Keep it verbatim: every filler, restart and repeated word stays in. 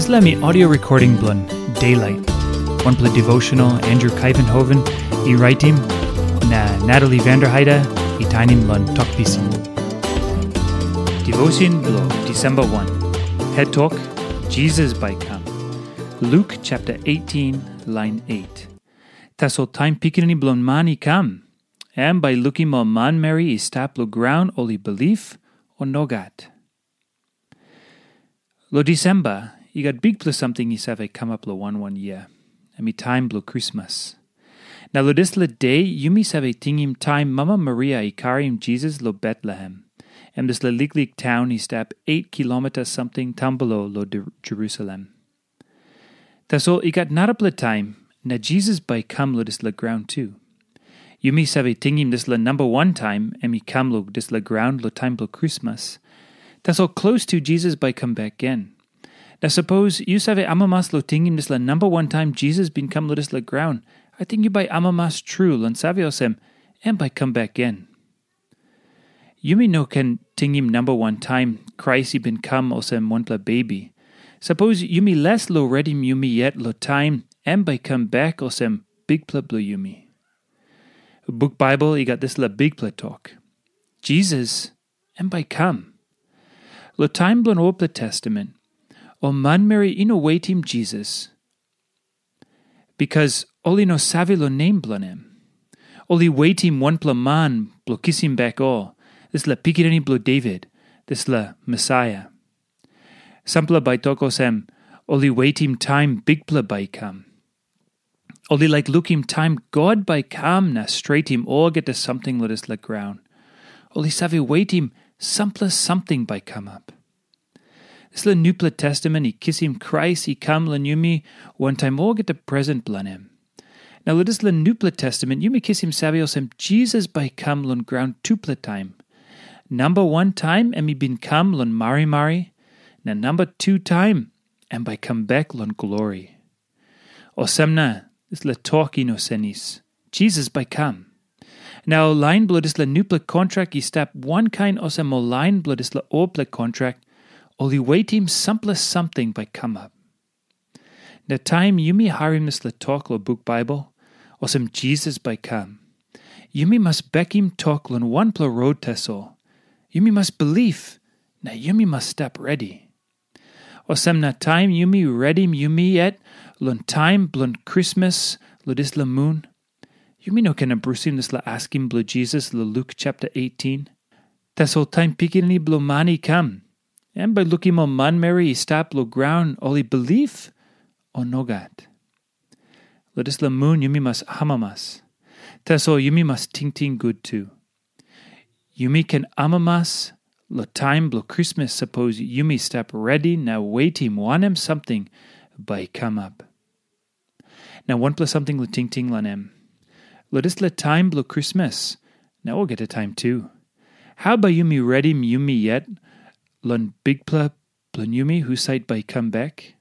Dispela mi audio recording bilong Daylight. Wanpela devotional Andrew Kaivenhoven i raitim, na Natalie Vanderheide i tainim long tok pisin. Devotion bilong December one. Het tok, Jesus bai kam. Luke chapter eighteen, line eight. Tasol taim Pikinini bilong Man i kam, em bai lukim ol manmeri i stap long graun ol i bilip, o nogat. Long Disemba, i gat bikpela samting i save kamap long wan wan yia. Em i taim bilong Krismas. Na long dispela de, yumi save tingim taim Mama Maria i karim Jisas long Betlehem, em dispela liklik taun i stap eit kilomita samting tampelo long Jerusalem. Tasol i gat narapela taim, na Jisas bai i kam long dispela graun tu. Yumi save tingim dispela namba wan taim em i kam long dispela graun long taim bilong Krismas. Tasol klostu Jisas bai i kam bek gen. Na sapos yu save amamas long tingim dispela namba wan taim Jisas bin kam long dispela graun, ating yu bai amamas tru long save olsem, em bai i kam bek gen. Yumi no ken tingim namba wan taim Krais i bin kam olsem wanpela bebi. Sapos yumi les long redim yumi yet long taim em bai i kam bek olsem Bikpela bilong yumi. Buk Baibel i gat dispela bikpela tok, Jisas em bai i kam. Long taim bilong olpela testament, ol manmeri i no wetim Jisas, bikas ol i no save long nem bilong em. Ol i wetim wanpela man bilong kisim bek ol, dispela pikinini bilong Devit, dispela Mesaia. Sampela bai tok olsem, ol i wetim taim Bikpela bai i kam. Ol i laik lukim taim God bai i kam na stretim olgeta samting long dispela graun. Ol i save wetim sampela samting bai i kamap. Dispela nupela testament i kisim Krais i kam long yumi wantaim olgeta presen bilong em. Na long dispela nupela testament yumi kisim save olsem Jisas bai i kam long graun tupela taim. Namba wan taim em i bin kam long marimari, na namba tu taim em bai i kam bek long glori. Olsem na dispela tok i no senis. Jisas bai i kam. Na ol lain bilong dispela nupela kontrak i stap wankain olsem ol lain bilong dispela olpela kontrak, ol i wetim sampela samting bai kamap. Na taim yumi harim dispela tok long buk Baibel, olsem Jisas bai kam, yumi mas bekim tok long wanpela rot tasol. Yumi mas bilip, na yumi mas stap redi. Olsem na taim yumi redim yumi yet long taim bilong Krismas long dispela mun, yumi no ken abrusim dispela askim bilong Jisas long Luk chapter eighteen. Tasol taim Pikinini Bilong Man i kam, em bai lukim ol manmeri i stap long graun ol i bilip, o nogat. Long dispela mun yumi mas amamas. Tasol yumi mas tingting gut tu. Yumi ken amamas long taim bilong Krismas sapos yumi stap redi na wetim wanem samting bai i kamap. Na wanpela samting long tingting long em. Long dispela taim bilong Krismas, na olgeta taim tu, hau bai yumi redim yumi yet long Bikpela bilong yumi husat bai i kam bek?